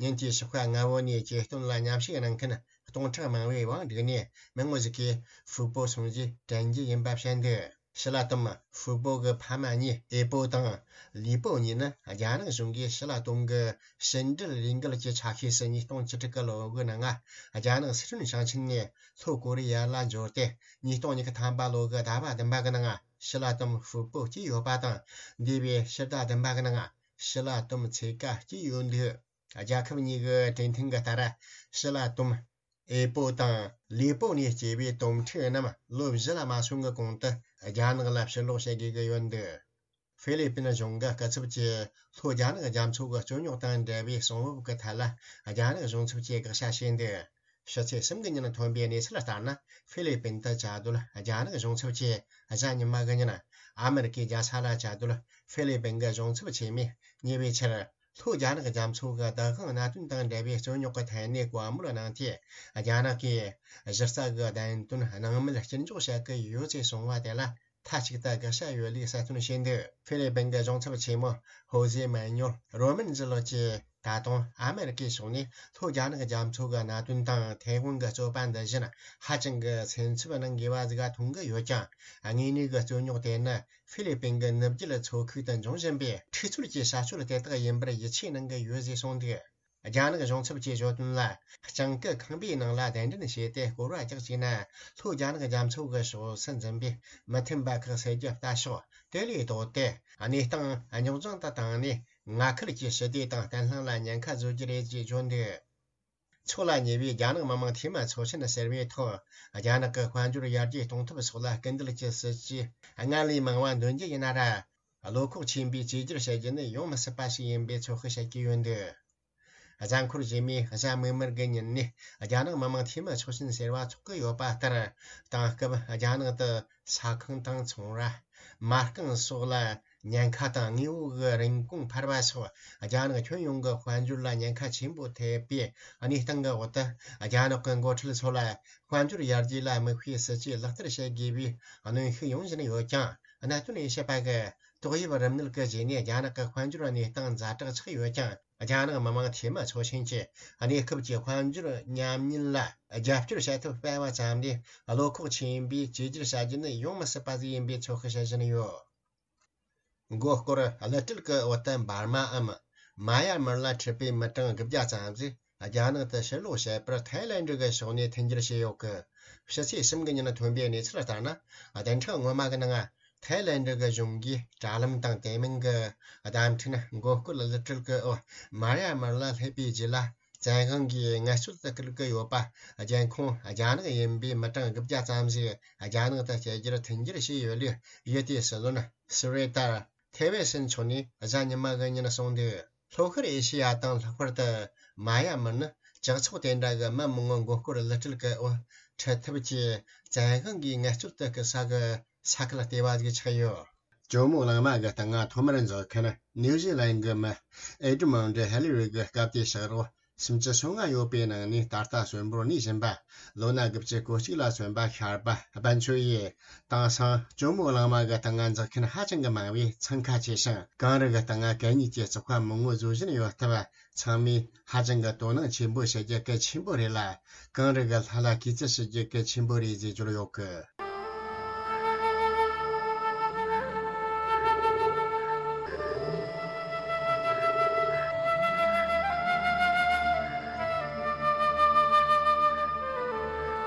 ཉིན་དེའི་ཞོགས་ཀ་སྔ་བོ་ནས་གྱེར་འདོན་ལ་མཉམ་ཞུགས་གནང་མཁན་སྟོང་ཕྲག་མང་བོའི་དབང་བསྒྲིགས་ནས། མི་ངོ་ཞིག་གིས་ཧྥུ་པོ་སོང་རྗེས་དྲན་རྒྱུ་ཡིན་པ་བཤད་འདུག་ཞི་ལ་ཏོམ་ཧྥུ་པོ་གི་ཕ་མ་གཉིས་ཨེ་པོ་དང་ལི་པོ་གཉིས་ནི། རྒྱ་ནག་གཞུང་གིས་ཞི་ལ་ཏོམ་གྱི་ཕྱི་འབྲེལ་ལས་འགུལ་གྱི་ཆ་ཤས་སུ་ཉིས་སྟོང་བཅུ་དྲུག་གི་ལོ་གི་ནང་། རྒྱ་ནག་སི་ཁྲོན་ཞིང་ཆེན་ནས་ལྷོ་ཀོ་རི་ཡ་ལ་འབྱོར་ཏེ། ཉིས་སྟོང་ཉི་ཤུ་ཐམ་པ་ལོ་གི་ཟླ་བ་བདུན་པ་གི་ནང་ཞི་ལ་ཏོམ་ཧྥུ་པོ་སྐྱེས་ཡོད་པ་དང་། འདས་པའི་ཕྱི་ཟླ་བདུན་པ་གི་ནང་ཞི་ལ་ཏོམ་ཚེ་ག་སྐྱེས་ཡོད་འདུག་རྒྱལ་ཁབ་གཉིས་ཀྱི་གྲོས་མཐུན་གྱི་ལྟར། ཞི་ལ་ཏོམ། ཨེ་པོ་དང་ལི་པོ་ནས་སྐྱེས་པའི་དོམ་ཕྲུག་རྣམས་ལོ་བཞི་ལ་མ་སོན་གྱི་གོང་དུ་རྒྱ་ནག་ལ་ཕྱིར་ལོག་བྱེད་དགོས་ཀྱི་ཡོད་འདུག་ཧྥི་ལི་པིན་གཞུང་གི་སྐུ་ཚབ་ཀྱིས་ལྷོ་རྒྱ་ནག་རྒྱ་མཚོ་གི་རྩོད་རྙོག་དང་འབྲེལ་བའི་གསང་བབ་ཀྱི་ཐད་ལ་རྒྱ་ནག་གཞུང་ཚབ་ཀྱིས་དགག་བྱ་བྱས་འདུག་ཕྱི་ཚེས་གསུམ་གྱི་ཉིན་ཐོན་པའི་གནས་ཚུལ་ལྟར་ན། ཧྥི་ལི་པིན་དུ་བཅའ་སྡོད་རྒྱ་ནག་གཞུང་ཚབ་ཀྱིས་གཟའ་ཉི་མ་གི་ཉིན། ཨ་མེ་རི་ཀའི་རྒྱལ་ས་ལ་བཅའ་སྡོད་ཧྥི་ལི་པིན་གྱི་གཞུང་ཚབ་ཆེན་མོས་ཉེ་བའི་ཆར། ལྷོ་རྒྱ་ནག་རྒྱ་མཚོ་གི་བདག་དབང་གནད་དོན་དང་འབྲེལ་བའི་རྩོད་རྙོག་གི་ཐད་ནས་བཀའ་མོལ་གནང་སྟེ། རྒྱ་ནག་གིས་གཞི་རྩ་གི་བདེན་དོན་སྣང་མེད་སྐྱུར་འཇོག་བྱེད་ཀྱི་ཡོད་ཅེས་གསུངས་པ་དེ་ལ་ མཐའ་གཅིག་ཏུ་དགག་བྱ་ཡོད་ལུགས་གསལ་སྟོན་བྱས་འདུག་ཧྥི་ལི་པིན་གྱི་གཞུང་ཚབ་ཆེན་མོ་ཧོ་ཟེ་མན་ཉོལ་རོ་མན་ཛི་ལོ་ཀྱིས། ད་དུང་ཨ་མེ་རི་ཀའི་ཕྱོགས་ནས་ལྷོ་རྒྱ་ནག་རྒྱ་མཚོ་གི་གནད་དོན་དང་ཐའེ་ཝན་གྱི་རྩོད་པ་འདི་བཞིན་ཧ་ཅང་གི་སེམས་འཚབ་གནང་དགོས་པ་ཟིག་མཐོང་གི་ཡོད་ཀྱང་། དངོས་གནས་ཀྱི་རྩོད་རྙོག་དེ་ནི་ཧྥི་ལི་པིན་གྱི་ནུབ་རྒྱུད་མཚོ་ཁུལ་དུ་འབྱུང་བཞིན་པའི་འཁྲུག་རྩོད་ཀྱི་བྱ་སྤྱོད་དེ་དག་ཡིན་པར་ཡིད་ཆེས་གནང་གི་ཡོད་ཅེས་གསུངས་འདུག་རྒྱ་ནག་གཞུང་ཚབ་ཀྱིས་བརྗོད་དོན་ལ། སྤྱང་ཀི་ཁང་པའི་ནང་ལ་གདན་འདྲེན་བྱས་ཏེ་སྐོར་བ་རྒྱག་བཅུག་ན། ལྷོ་རྒྱ་ནག་རྒྱ་མཚོ་གི་ཕྱོགས་སུ་འཛིན་པའི་མི་མཐུན་པ་ཁག་སེལ་རྒྱུ་ལྟ་ཕྱོགས་དེ་ལས་ལྡོག་སྟེ། གནས་སྟངས་རྙོག་འཛིང་དུ་བཏང་ནས། མངའ་ཁུལ་གྱི་ཞི་བདེ་དང་བརྟན་ལྷིང་ལ་ཉེན་ཁ་བཟོ་རྒྱུ་རེད་ཅེས་བརྗོད་འདུག་ཕྱོགས་ལ་ཉེ་བའི་རྒྱ་ནག་མི་དམངས་འཐུས་མི་ཚོགས་ཆེན་ཟེར་བའི་ཐོག་རྒྱ་ནག་གི་དཔལ་འབྱོར་ཡར་རྒྱས་གཏོང་ཐབས་སོགས་ལ་སྐུལ་འདེད་ཀྱི་སྲིད་ཇུས་སྔར་ལས་མང་བ་འདོན་རྒྱུ་ཡིན་ན་ར། བློ་ཁོག་ཆེན་པོས་བཅོས་བསྒྱུར་བྱ་རྒྱུ་ནི་ཡོང་མི་སྲིད་པ་ཞིག་ཡིན་པའི་ཚོད་དཔག་བྱེད་ཀྱི་ཡོད་འདུག་གཟའ་འཁོར་རྗེས་མའི་གཟའ་མིག་དམར་གྱི་ཉིན་ནས་རྒྱ་ནག་མི་དམངས་འཐུས་མི་ཚོགས་ཆེན་ཟེར་བ་འཚོགས་ཀྱི་ཡོད་པ་ལྟར། དེང་སྐབས་རྒྱ་ནག་ཏུ་ས་ཁང་དང་ཚོང་ར། མ་རྐང་སོགས་ལ་ཉེན་ཁ་དང་། དངོས་པོ་གི་རིན་གོང་འཕར་བ་སོགས་རྒྱ་ནག་ཁྱོན་ཡོངས་ཀྱི་དཔལ་འབྱོར་ལ་ཉེན་ཁ་ཆེན་པོ་ཐེབས་པའི་གནས་སྟངས་ཀྱི་འོག་ཏུ། རྒྱ་ནག་གི་འགོ་ཁྲིད་ཚོ་ལ་དཔལ་འབྱོར་ཡར་རྒྱས་ལ་དམིགས་པའི་སྲིད་ཇུས་ལག་བསྟར་བྱེད་དགོས་པའི་གནོན་ཤུགས་ཡོང་བཞིན་ཡོད་ཀྱང་། གནད་དོན་དབྱེ་ཞིབ་པ་གིས་ཏོག་དབྱིབས་རིམས་ནད་ཀྱི་རྗེས་ནས་རྒྱ་ནག་གི་དཔལ་འབྱོར་གནས་སྟངས་ཛ་དྲག་ཆགས་ཡོད་ཀྱང་། རྒྱ་ནག་མི་དམངས་འཐུས་མི་ཚོགས་ཆེན་གྱིས་གནས་སྐབས་ཀྱི་དཔལ་འབྱོར་ཉམས་ཉེན་ལ་རྒྱབ་སྐྱོར་བྱེད་ཐབས་སྤེལ་བ་ཙམ་ལས། བློ་ཁོག་ཆེན་པོས་བཅོས་བསྒྱུར་བྱ་རྒྱུ་ནི་ཡོང་མི་སྲིད་པ་ཟིག་ཡིན་པའི་ཚོད་དཔག་བྱེད་བཞིན་ཡོད། མགོ་སྐོར་གླུ་སྤྲད་ཀྱི་འོག་ཏུ་འབར་མའམ་མ་ཡ་མར་ལ་འཁྲིད་པའི་མི་གྲངས་དགུ་བརྒྱ་ཙམ་ཞིག་རྒྱ་ནག་ཏུ་ཕྱིར་ལོག་བྱེད་པར་ཐའི་ལན་ཌི་གི་ཕྱོགས་ནས་མཐུན་འགྱུར་བྱས་ཡོད་ཀི། ཕྱི་ཚེས་གསུམ་གྱི་ཉིན་ཐོན་པའི་གནས་ཚུལ་ལྟར་ན། བདུན་ཕྲག་སྔོན་མ་གི་ནང་ཐའི་ལན་ཌི་གི་གཞུང་གིས་དྲ་ལམ་དང་དེ་མིན་གྱི་བརྡ་འཕྲིན་མགོ་སྐོར་གླུ་སྤྲད་ཀྱི་འོག་མ་ཡ་མར་ལ་སླེབས་པའི་རྗེས་ལ། བཙན་དབང་གིས་ངལ་རྩོལ་དུ་བསྐུལ་གྱི་ཡོད་པ། རྒྱལ་ཁོངས་རྒྱ་ནག་ཡིན་པའི་མི་གྲངས་དགུ་བརྒྱ་ཙམ་ཞིག་རྒྱ་ནག་ཏུ་བསྐྱལ་རྒྱུར་མཐུན་འགྱུར་བྱས་ཡོད་ལུགས་གཞི་དེའི་སྲིད་བློན་སུ་རེ་ཏར་ཐེ་ཝེ་སན་མཆོག་ནས་གཟའ་ཉི་མ་གི་ཉིན་གསུངས་འདུག་ལྷོ་ཤར་ཨེ་ཤེ་ཡ་དང་ལྷག་པར་དུ་མ་ཡ་མར་ནི་ཇག་ཚོགས་དེ་འདྲ་གི་མི་མང་པོ་མགོ་སྐོར་གླུ་སྤྲད་ཀྱི་འོག་ཁྲིད་ཐབས་ཀྱིས་བཙན་དབང་གིས་ངལ་རྩོལ་དུ་བསྐུལ་ས་གི་ས་ཁུལ་ལྟེ་བ་ཞིག་ཆགས་ཡོད། ཇོ་མོ་གླང་མ་གི་སྟེང་ང་ཐོག་མར་འཛེགས་མཁན་ནིའུ་ཟི་ལན་གྱི་མི་ཨེ་ཌི་མོན་ཌི་ཧེ་ལི་རི་གི་སྐབས་དེའི་ཕྱག་རོགས་སུམ་ཅུ་སོ་ལྔ་ཡོད་པའི་ནང་ནས་ད་ལྟ་གསོན་པོར་གནས་བཞིན་པ། ལོ་ན་དགུ་བཅུ་གོ་གཅིག་ལ་སོན་པ་ཤར་པ་སྦན་ཆོས་ཡིས་དེང་སང་ཇོ་མོ་གླང་མ་གི་སྟེང་ང་འཛེགས་མཁན་ཧ་ཅང་གི་མང་བས་འཚང་ཁ་ཆེ་ཞིང་། གངས་རི་གི་སྟེང་ང་གད་སྙིགས་ཀྱི་བཙོག་པ་མང་བོ་བཟོ་བཞིན་ཡོད་སྟབས། ཚང་མས་ཧ་ཅང་གི་དོ་སྣང་ཆེན་པོ་བྱེད་རྒྱུ་གལ་ཆེན་པོ་རེད་ལ། གངས་རི་གི་ལྷ་ལ་གུས་བརྩི་ཞུ་རྒྱུ་གལ་ཆེན་པོ་རེད་ཅེས་བརྗོད་ཡོད་གི།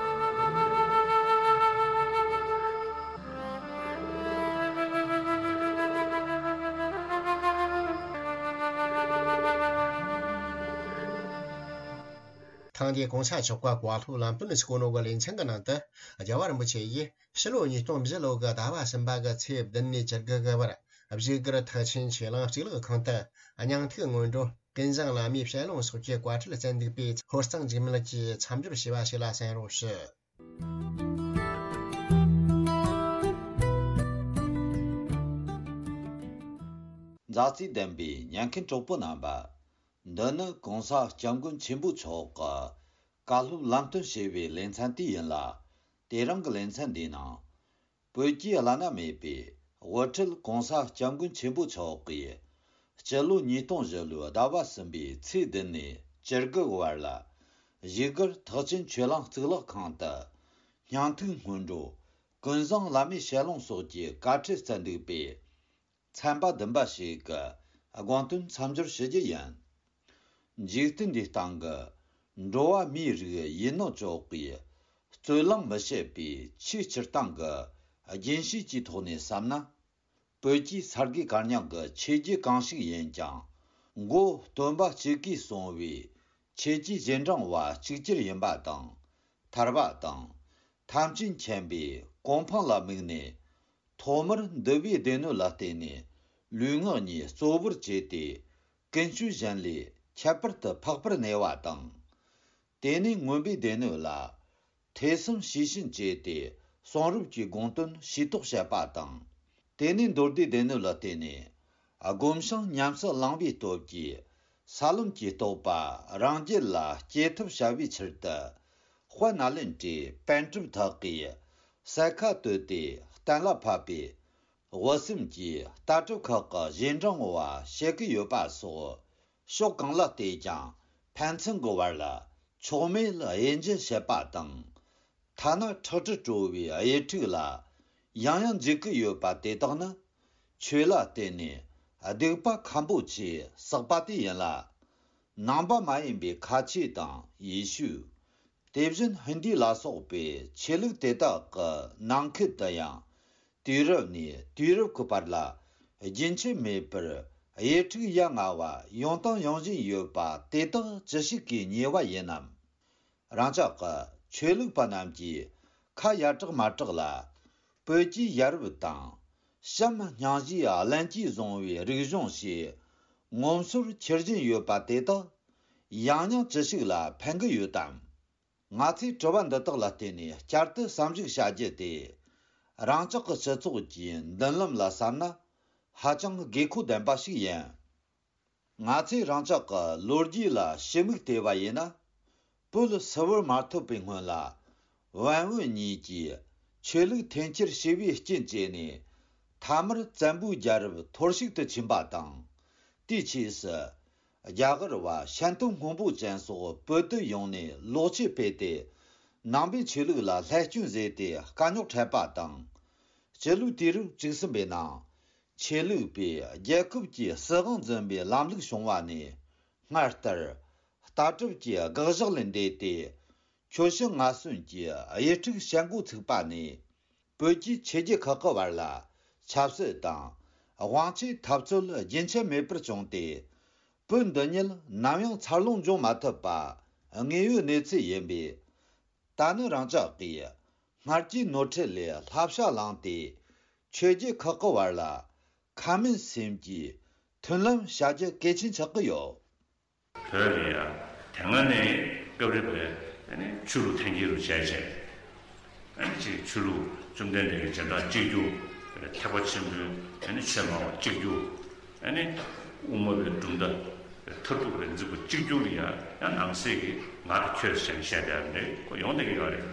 ཐེངས་འདིའི་གོང་ས་མཆོག་གི་བཀའ་སློབ་ལམ་སྟོན་སྐུ་ནོ་གི་ལེ་ཚན་གྱི་ནང་དུ། རྒྱལ་བ་རིན་པོ་ཆེ་ཡིས་ཕྱི་ལོ་ཉིས་སྟོང་བཞི་ལོ་གི་ཟླ་བ་གསུམ་པ་གི་ཚེས་བདུན་ནས་བཅུ་དགུ་གི་བར་བཞུགས་སྒར་ཐེག་ཆེན་ཆོས་གླིང་གཙུག་ལག་ཁང་དུ་སྙིང་ཐིག་སྔོན་འགྲོ་ཀུན་བཟང་བླ་མའི་ཞལ་ལུང་སོགས་ཀྱི་བཀའ་ཁྲིད་བསྩལ་འདུག་པས། ཧོར་གཙང་འཇིགས་མེད་ཀྱིས་མཚམས་སྦྱོར་བྱས་པ་ཞིག་ལ་གསན་རོགས་ཞུ། མཛའ་བརྩེ་ལྡན་པའི་ཉན་མཁན་གྲོགས་པོ་རྣམ་པ། འདི་ནི་གོང་ས་སྐྱབས་མགོན་ཆེན་པོ་མཆོག་གིས་བཀའ་སློབ་ལམ་སྟོན་བྱས་པའི་ལེ་ཚན་དེ་ཡིན་ལ། དེ་རིང་གི་ལེ་ཚན་འདིའི་ནང་། བོད་ཀྱི་བླ་ན་མེད་པའི་དབུ་ཁྲིད་གོང་ས་སྐྱབས་མགོན་ཆེན་པོ་མཆོག་གིས་སྤྱི་ལོ་ཉིས་སྟོང་བཞི་ལོའི་ཟླ་བ་གསུམ་པའི་ཚེས་བདུན་ནས་བཅུ་དགུ་བར་ལ། བཞུགས་སྒར་ཐེག་ཆེན་ཆོས་གླིང་གཙུག་ལག་ཁང་དུ་སྙིང་ཐིག་སྔོན་འགྲོ་ཀུན་བཟང་བླ་མའི་ཞལ་ལུང་སོགས་ཀྱི་བཀའ་ཁྲིད་བསྩལ་འདུག་པས། ཚན་པ་བདུན་པ་ཞིག་གི་དགོངས་དོན་མཚམས་སྦྱོར་ཞུ་རྒྱུ་ཡིན། འཇིག་རྟེན་འདིའི་སྟེང་གི་འགྲོ་བ་མིའི་རིགས་ཡིན་ནོ་ཅོག་གིས་རྩོད་གླེང་མི་བྱེད་པའི་ཆེས་སྤྱིར་བཏང་གི་རྒྱུན་ཤེས་ཀྱི་ཐོག་ནས་བསམ་ན། བོད་ཀྱི་ས་དགེ་བཀའ་རྙིང་གི་ཆོས་བརྒྱུད་གང་ཞིག་ཡིན་ཀྱང་། མགོ་སྟོན་པ་གཅིག་གིས་གསུངས་པའི་ཆོས་ཀྱི་རྗེས་འབྲང་བ་གཅིག་གྱུར་ཡིན་པ་དང་། ཐར་པ་དང་། ཐམས་ཅད་མཁྱེན་པའི་གོ་འཕང་ལ་དམིགས་ནས། ཐོག་མར་འདུལ་བའི་སྡེ་སྣོད་ལ་བརྟེན་ནས་ལུས་ངག་གཉིས་གཙོ་བོར་བྱས་ཏེ། ཀུན་སྤྱོད་གཞན་ལས་ཁྱད་པར་དུ་འཕགས་པར་གནས་པ་དང་། དེ་ནས་མངོན་པའི་སྡེ་སྣོད་ལ་ཐོས་བསམ་ཤེས་བཞིན་བྱས་ཏེ། གསུང་རབ་ཀྱི་དགོངས་དོན་ཤེས་རྟོགས་བྱེད་པ་དང་། དེ་ནས་མདོ་སྡེའི་སྡེ་སྣོད་ལ་བརྟེན་ནས་སྒོམ་ཞིང་ཉམས་སུ་བླང་བའི་སྟོབས་ཀྱིས། ས་ལམ་གྱི་རྟོགས་པ་རང་རྒྱུད་ལ་སྐྱེ་ཐབས་བྱ་བའི་ཕྱིར་དུ། དཔལ་ནཱ་ལེནྡྲའི་པཎ་གྲུབ་དག་གིས་ ས་ཁ་བཏོད་དེ་གཏན་ལ་ཕབ་པའི་དབུ་སེམས་ཀྱི་ལྟ་གྲུབ་ཁག་གི་རྗེས་འབྲང་བ་བྱེད་ཀྱི་ཡོད་པ་སོགས་ཕྱོགས་གང་ལ་བལྟས་ཀྱང་ཕན་ཚུན་གྱི་བར་ལ་ཕྱོགས་མེད་དབྱེ་འབྱེད་བྱེད་པ་དང་། ཐ་ན་ཁྲག་དྲི་བྲོ་བའི་དབྱེ་འཁྲུག་ལ་ཡང་ཡང་འཇིགས་ཀྱི་ཡོད་པ་དེ་དག་ནི། ཆོས་ལ་བརྟེན་ནས་སྡིག་པ་ཁམ་པོ་ཆེ་བསགས་པ་དེ་ཡིན་ལ། ནང་པ་མ་ཡིན་པའི་ཁ་ཆེ་དང་ཡེ་ཤུ། དེ་བཞིན་ཧིན་དི་ལ་སོགས་པའི་ཆོས་ལུགས་དེ་དག་གི་ནང་ཁུལ་དུ་ཡང་། དུས་རབས་ནས་དུས་རབས་ཀྱི་བར་ལ་རྒྱུན་ཆད་མེད་པར་དབྱེ་འཁྲུག་ཡ་ང་བ་ཡོང་དང་ཡོང་བཞིན་ཡོད་པ་དེ་དག་ཅི་ཞིག་གིས་ཉེས་པ་ཡིན་ནམ། རང་ཅག་གི་ཆོས་ལུགས་པ་རྣམས་ཀྱིས་ཁ་ཡར་དྲག་མར་དྲག་ལ། བོད་ཀྱི་ཡ་རབས་དང་། བྱམས་སྙིང་རྗེའི་བླན་གྱིས་བཟུང་བའི་རིག་གཞུང་ཞེས་ངོམ་སོར་འཁྱེར་བཞིན་ཡོད་པ་དེ་དག་ཡང་སྙིང་ཅི་ཞིག་ལ་ཕན་གྱི་ཡོད་དམ། ང་ཚོས་དྲི་བ་འདི་དག་ལ་བརྟེན་ནས་བསྐྱར་དུ་བསམ་གཞིག་བྱ་རྒྱུ་དེ། རང་ཅག་གི་སྤྱི་ཚོགས་ཀྱི་མདུན་ལམ་ལ་བསམ་ན་ཧ་ཅང་དགོས་མཁོ་ལྡན་པ་ཞིག་ཡིན། ང་ཚོས་རང་ཅག་གི་ལོ་རྒྱུས་ལ་ཞིབ་མོ་བལྟས་པ་ཡིན་ན། བོད་སིལ་བུར་མ་ཐོབ་པའི་སྔོན་ལ། བན་བོན་གཉིས་ཀྱིས་ཆོས་ལུགས་འཐེན་འཁྱེར་བྱས་པའི་རྐྱེན་བྱས་ནས། མཐའ་མར་བཙན་པོའི་རྒྱལ་རབས་འཐོར་ཞིག་ཏུ་ཕྱིན་པ་དང་། དེའི་རྗེས་སུ། རྒྱ་གར་བ་ཤན་སྟོན་སྔོན་པོ་ཅན་སོགས་བོད་དུ་ཡོང་ནས་ལོག་སྤྱོད་སྤེལ་ཏེ། ནང་པའི་ཆོས་ལུགས་ལ་བསླད་སྐྱོན་བཟོས་ཏེ་དཀའ་རྙོག་འཕྲད་པ་དང་། སྤྱི་ལོའི་དུས་རབས་བཅུ་གསུམ་པའི་ནང་། ཆོས་ལུགས་པས་རྒྱལ་ཁབ་ཀྱི་སྲིད་དབང་འཛིན་པའི་ལམ་ལུགས་བྱུང་བ་ནས། སྔར་ལྟར་ལྟ་གྲུབ་ཀྱི་དགག་བཞག་ལས་འདས་ཏེ། ཁྱོ་ཤུག་ང་གསོན་གྱི་དབྱེ་འཁྲུག་བྱེད་འགོ་ཚུགས་པ་ནས། བོད་ཀྱི་ཆོས་བརྒྱུད་ཁག་གི་བར་ལ་ཆབ་སྲིད་དང་དབང་ཆའི་འཐབ་རྩོད་རྒྱུན་ཆད་མེད་པར་བྱུང་སྟེ། བོད་འདི་ཉིད་ནམ་ཡང་འཚར་ལོངས་འབྱུང་མ་ཐུབ་པ་དངོས་ཡོད་གནས་ཚུལ་ཡིན་པས། ད་ནི་རང་ཅག་གིས་སྔར་གྱི་ནོར་འཁྲུལ་ལས་བསླབ་བྱ་བླངས་ཏེ། ཆོས་བརྒྱུད་ཁག་གི་བར་ལ་ཁ་མིན་སེམས་ཀྱི་མཐུན་ལམ་བྱ་རྒྱུ་གལ་ཆེན་ཆགས་ཀྱི་ཡོད། བོད་ལ་ཡ་དེ་སྔ་ནས་སྐབས་རེ་བས་ཆོས་ལུགས་འཐེན་འཁྱེར་རུ་བྱས་བྱས། ཨ་ནི་ཅིག་ཆོས་ལུགས་བཅོམ་ལྡན་འདས་ཀྱི་རྗེས་འབྲང་གཅིག་གྱུར། ཐེག་པ་ཆེན་པོའི་ཨ་ནི་ཆོས་སྨྲ་བ་གཅིག་གྱུར། ཨ་ནི་དབུ་མ་པའི་གྲུབ་མཐའ་མཐར་ཐུག་པའི་འཛིན་པ་གཅིག་གྱུར་ལ་ཡང་ཡང་ནང་གསེས་ཀྱི་ང་དང་ཁྱོད་ཟེར་བཤད་བསྡད་པ་འདྲ་ཁོ་ཡོང་བསྡད་ཀྱི་ཡོད་རེད།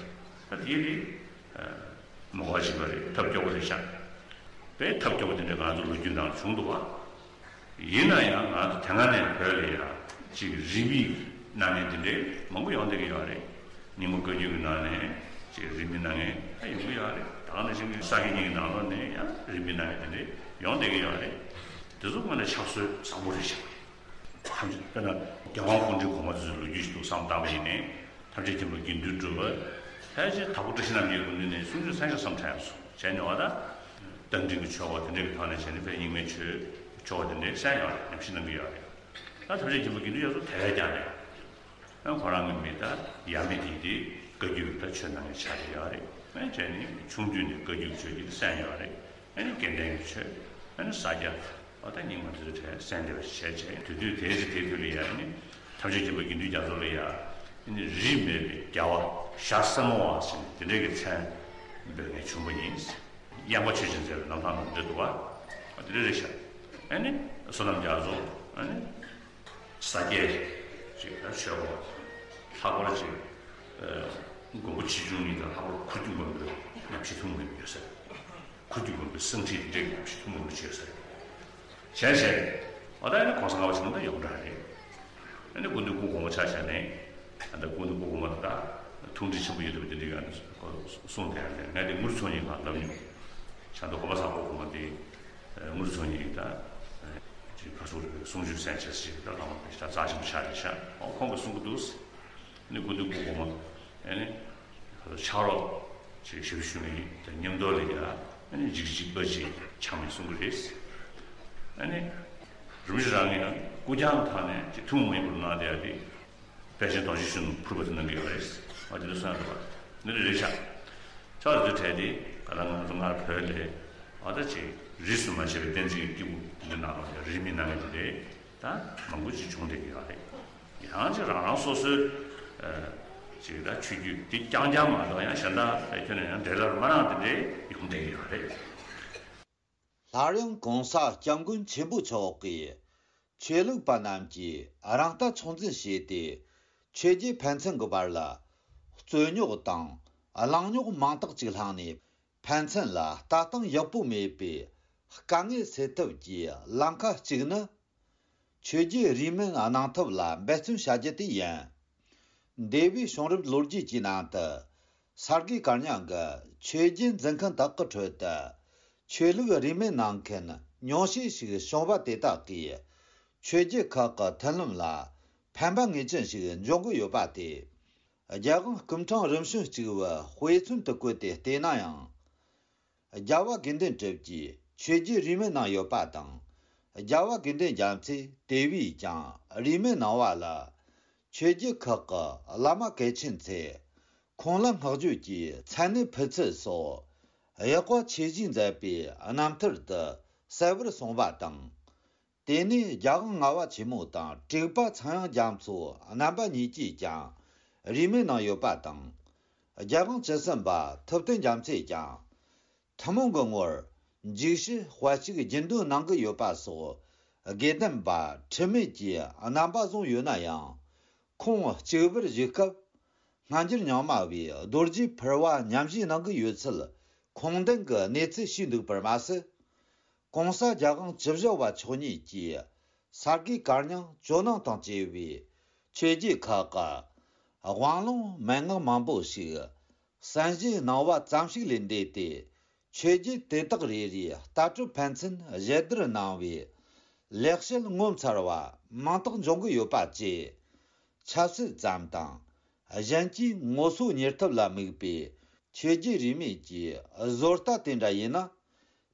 ད་དེ་ཡིན་དུས་མ་གོ་བ་བྱེད་པ་རེད། ཐབས་སྐྱོ་པོ་རེད་ཤག་དཔེ་ཐབས་སྐྱོ་པོ་དེ་འདྲ་ང་ཚོ་ལོ་རྒྱུས་ནང་བྱུང་འདུག་བ། ཡིན་ན་ཡང་ང་ཚོ་དེ་སྔ་ནས་བོད་ལ་ཡ་ཅིག་རིས་མེད་གནང་མཁན་དེ་འདྲས་མང་པོ་ཡོང་བསྡད་ཀྱི་ཡོད་རེད། རྙིང་མ་བཀའ་བརྒྱུད་ཀྱི་ནང་ནས་ཅིག་རིས་མེད་གནང་མཁན་ཡང་ཡོང་གི་ཡོད་རེད། ད་ག་ནང་བཞིན་གྱི་ས་དགེ་རྙིང་གི་ནང་ལོགས་ནས་ཡང་རིས་མེད་གནང་མཁན་དེ་འདྲས་ཡོང་བསྡད་ཀྱི་ཡོད་རེད། དེ་ཚོ་དངོས་གནས་ཕྱག་སྲོལ་བཟང་པོ་རེད་ཤག་ཐམས་ཅད་དཔེར་ན་རྒྱལ་དབང་སྐུ་ཕྲེང་གོང་མ་ཚོའི་ལོ་རྒྱུས་ཤིག་ཏུ་བསམ་བཏང་བ་ཡིན་ནའི་ཐམས་ཅད་མཁྱེན་པ་དགེ་འདུན་གྲུབ་པ་ཕལ་ཆེར་དྭགས་པོ་བཀྲ་ཤིས་རྣམ་རྒྱལ་སྐུ་མདུན་ནས་གསུང་ཆོས་གསན་ཆོག་བསམ་དྲན་སོང་བྱས་ནས་བ་ད། རྟ་མགྲིན་གྱི་ཆོ་ག་དེ་འདྲ་གི་ཐོག་ནས་བྱས་ནས་དཔེ་རྙིང་མའི་ཆོས་ཆོ་ག་དེ་འདྲ་གསན་ཡོད་རེད། ཉམས་ཞིབ་གནང་གི་ཡོད་རེད། ད་ཐམས་ཅད་མཁྱེན་པ་དགེ་འདུན་ཡོངས་སུ་དེ་བས་ཀྱང་རེད། ཨ་ཁོ་རང་གི་མི་ད་ཡབ་མེས་དེ་དེ་བཀའ་བརྒྱུད་ཀྱི་ད་ཆོས་གནང་མཁན་ཆགས་ཀྱི་ཡོད་རེད། ཨ་བྱས་ནས་ཆུང་དུས་ནས་བཀའ་བརྒྱུད་ཆོས་ཀྱི་གསན་ཡོད་རེད། ཨ་ནི་དགེ་ལྡན་གྱི་ཆོས། ཨ་ནི་ས་སྐྱ། ཨ་ད་རྙིང་མ་དེ་ཚོ་གསན་བསྡད་པ་ཞིག་བྱས་བྱས་དུས་དུས་དེའི་ཚེ་དེའི་དུས་ལ་ཡ་ཨ་ནི་ཐམས་ཅད་མཁྱེན་པ་དགེ་འདུན་རྒྱ་མཚོ་ལ་ཡ་ཨ་ནི་རིས་མེད་པའི་རྒྱལ་བ་ཞྭ་སེར་མོ་བ་ཟེར་ནས་དེ་འདྲའི་གི་མཚན་འབོད་མཁན་བྱུང་བ་ཡིན། གཡང་པ་ཆོས་ཅན་མཛད་པའི་རྣམ་ཐར་ནང་འདྲ་འདུག་བ། ཨ་དེ་འདྲ་རེད་ཤག་ཨ་ནི་བསོད་ནམས་རྒྱ་མཚོ་ཨ་ནི། ས་སྐྱའི་ཅིག་ད་ཆོས་སྐོར་ལྷག་པར་ཅིག་མགོན་པོ་ཆེ་ཆུང་གཉིས་དང་ལྷག་པར་ཁུ་བྱུག་མགོན་པོའི་ཉམས་ཞིབ་ཐུང་ངུ་ཡོད་ས་རེད། ཁུ་བྱུག་མགོན་པོའི་གསང་ཁྲིད་འདྲ་གི་ཉམས་ཞིབ་ཐུང་ངུ་བྱས་ས་རེད། གཞན་གཞན་རེད། འོ་ད་ཨ་ནི་གོང་ས་ལྔ་པ་ཆེན་པོ་ད་ཡོངས་གྲགས་རེད། ཨ་ནི་སྐུ་མདུན་སྐུ་གོང་མ་ཆ་བཞག་ནས་ཨ་ད་སྐུ་མདུན་སྐུ་གོང་མ་ད་ཐུགས་འདྲི་ཆེན་པོ་ཡོད་དུས་དེ་འདྲ་ག་ནས་གསུངས་བསྡད་ཡ་རེད། ང་དེ་དངུལ་ཚོང་ཉིན་གང་ལབ་མྱོང་། བྱ་མདོ་གོ་པ་ཚང་སྐུ་གོང་མ་དེ། དངུལ་ཚོང་ཉིད་ཀྱི་ད་ཅིག་ག་ཚོད་རེད། གསུང་ཆོས་གསན་བྱས་ཅིག་ད་ལྷག་མ་དེ་ད་རྩ་ཆེན་པོ་ཆགས་རེད་ཤག་ཨོ་ཁོང་གིས་གསུང་གི་འདུག་ཨ་ནི་སྐུ་མདུན་སྐུ་གོང་མ་ཨ་ནི་ཕྱག་རོགས་ཅིག་ཞབས་ཞུ་མི་དང་མཉམ་དུ་ལ་ཡ་ཨ་ནི་འཇིགས་འཇིགས་པ་ཅིག་ཆགས་མེད་གསུང་གི་རེད། ཨ་ནི་རིན་པོ་ཆེ་རང་གིས་ཡང་སྐུ་རྐྱང་ཐོག་ནས་ཅིག་ཐུན་མོང་མ་ཡིན་པར་གནང་བསྡད་ཡ་དེ། དཔལ་ཆེན་རྡོ་རྗེ་གཞོན་ནུ་ཕུར་པ་དེ་གནང་གི་ཡོད་རེད། ཨ་དེ་འདྲ་གསུངས་འདུག་བ། འདི་འདྲ་རེད་ཤག་ཆོག་རེད་དེ་དེ་ག་ལ་ང་ཚོ་སྔར་བོད་ལས་ཨ་ད་ཅིག་རིས་སུ་མ་ཆད་པའི་བསྟན་འཛིན་གྱི་སྐྱེས་བུ་འདི་ནང་ལ་རིས་མེད་གནང་མཁན་དེ་འདྲས་ད་མང་པོ་ཅིག་བྱུང་བསྡད་ཀྱི་ཡོད་རེད། ཡང་ཅིག་རང་རང་སོ་སོའི་ཅིག་ད་ཆོས་བརྒྱུད་འདི་རྐྱང་རྐྱང་མ་གཏོགས་ཡང་གཞན་དག་ཁྱོན་ནས་ཡང་འབྲེལ་ལམ་མ་རག་དེ་འདྲས་ཡོང་བསྡད་ཀྱི་ཡོད་རེད། སླར་ཡང་གོང་ས་སྐྱབས་མགོན་ཆེན་པོ་མཆོག་གིས་ཆོས་ལུགས་པ་རྣམས་ཀྱིས་རང་ལྟ་ཚོད་འཛིན་བྱས་ཏེ་ཆོས་བརྒྱུད་ཕན་ཚུན་གྱི་བར་ལ་རྩོད་རྙོག་དང་ གླེང་རྙོག་མང་དག་ཅིག་བསླངས་ནས། ཕན་ཚུན་ལ་ལྟ་སྟངས་ཡག་པོ་མེད་པའི་དཀའ་ངལ་སེལ་ཐབས་ཀྱི་ལམ་ཁ་གཅིག་ནི། ཆོས་བརྒྱུད་རིས་མེད་གནང་ཐབས་ལ་འབད་བརྩོན་བྱ་རྒྱུ་དེ་ཡིན། འདས་པའི་བྱུང་རབས་ལོ་རྒྱུས་ཀྱི་ནང་དུ། ས་དགེ་བཀའ་རྙིང་གི་ཆོས་བརྒྱུད་འཛིན་མཁན་དག་གི་ཁྲོད་དུ། ཆོས་ལུགས་རིས་མེད་གནང་མཁན་ཉུང་ཤས་ཤིག་བྱུང་བ་དེ་དག་གིས། ཆོས་བརྒྱུད་ཁག་གི་མཐུན་ལམ་ལ་ཕན་པ་ངེས་ཅན་ཞིག་འབྱུང་གི་ཡོད་པ་དེ། རྒྱལ་དབང་སྐུ་ཕྲེང་རིམ་བྱོན་གཅིག་པུའི་དཔེ་མཚོན་དུ་བཀོད་དེ་བལྟས་ན་ཡང་། རྒྱལ་བ་དགེ་འདུན་གྲུབ་ཀྱིས་ཆོས་བརྒྱུད་རིས་མེད་གནང་ཡོད་པ་དང་། རྒྱལ་བ་དགེ་འདུན་རྒྱལ་མཚན་དེ་བས་ཀྱང་རིས་མེད་གནང་བ་ལ། ཆོས་བརྒྱུད་ཁག་གི་བླ་མ་གལ་ཆེན་ཚོས་ཁོང་ལ་བསྔགས་བརྗོད་ཀྱི་མཚན་གནས་ཕུལ་ཚུལ་སོགས་ཡག་པ་ཆེ་བཞེས་མཛད་པའི་རྣམ་ཐར་དུ་གསལ་བོར་གསུངས་པ་དང་། དེ་ནས་རྒྱལ་དབང་ལྔ་པ་ཆེན་མོ་དང་དྲུག་པ་ཚངས་དབྱངས་རྒྱ་མཚོ་རྣམ་པ་གཉིས་ཀྱིས་ཀྱང་རིས་མེད་གནང་ཡོད་པ་དང་། རྒྱལ་དབང་བཅུ་གསུམ་པ་ཐུབ་བསྟན་རྒྱ་མཚོས་ཀྱང་། ཐུན་མོང་གི་ངོར་འཇིགས་བྱེད་དཔལ་གཅིག་རྒྱུན་འདོན་གནང་གི་ཡོད་པ་སོགས་དགེ་ལྡན་པ་འཁྲུལ་མེད་ཀྱི་རྣམ་པ་བཟུང་ཡོད་ན་ཡང་། ཁོང་གཅིག་པུར་བཞུགས་སྐབས། སྔ་འགྱུར་རྙིང་མ་བས་རྡོ་རྗེ་ཕུར་པ་ཉམས་བཞེས་གནང་གི་ཡོད་ཚུལ་ཁུངས་ལྡན་གྱི་གནས་ཚུལ་ཞིག་འདུག་པར་མ་ཟད། གོང་ས་རྒྱལ་དབང་བཅུ་བཞི་པ་མཆོག་ཉིད་ཀྱིས་ས་དགེ་བཀའ་རྙིང་ཇོ་ནང་དང་བཅས་པའི་ཆོས་བརྒྱུད་ཁག་གི་དབང་ལུང་མན་ངག་མང་པོ་ཞིག་གསན་བཞེས་གནང་བ་ཙམ་ཞིག་ལས་འདས་ཏེ། ཆོས་བརྒྱུད་དེ་དག་རེ་རེའི་ལྟ་གྲུབ་ཕན་ཚུན་ཞལ་བསྡུར་གནང་བའི་ལེགས་བཤད་ངོ་མཚར་བ་མང་དག་འབྱུང་གི་ཡོད་པ་བཅས། ཆབ་སྲིད་ཙམ་དང་གཞན་གྱིས་ངོ་སོ་གཉེར་ཐབས་ལ་དམིགས་པའི་ཆོས་བརྒྱུད་རིས་མེད་ཀྱི་བཟོ་ལྟ་དེ་འདྲ་ཡིན་ན།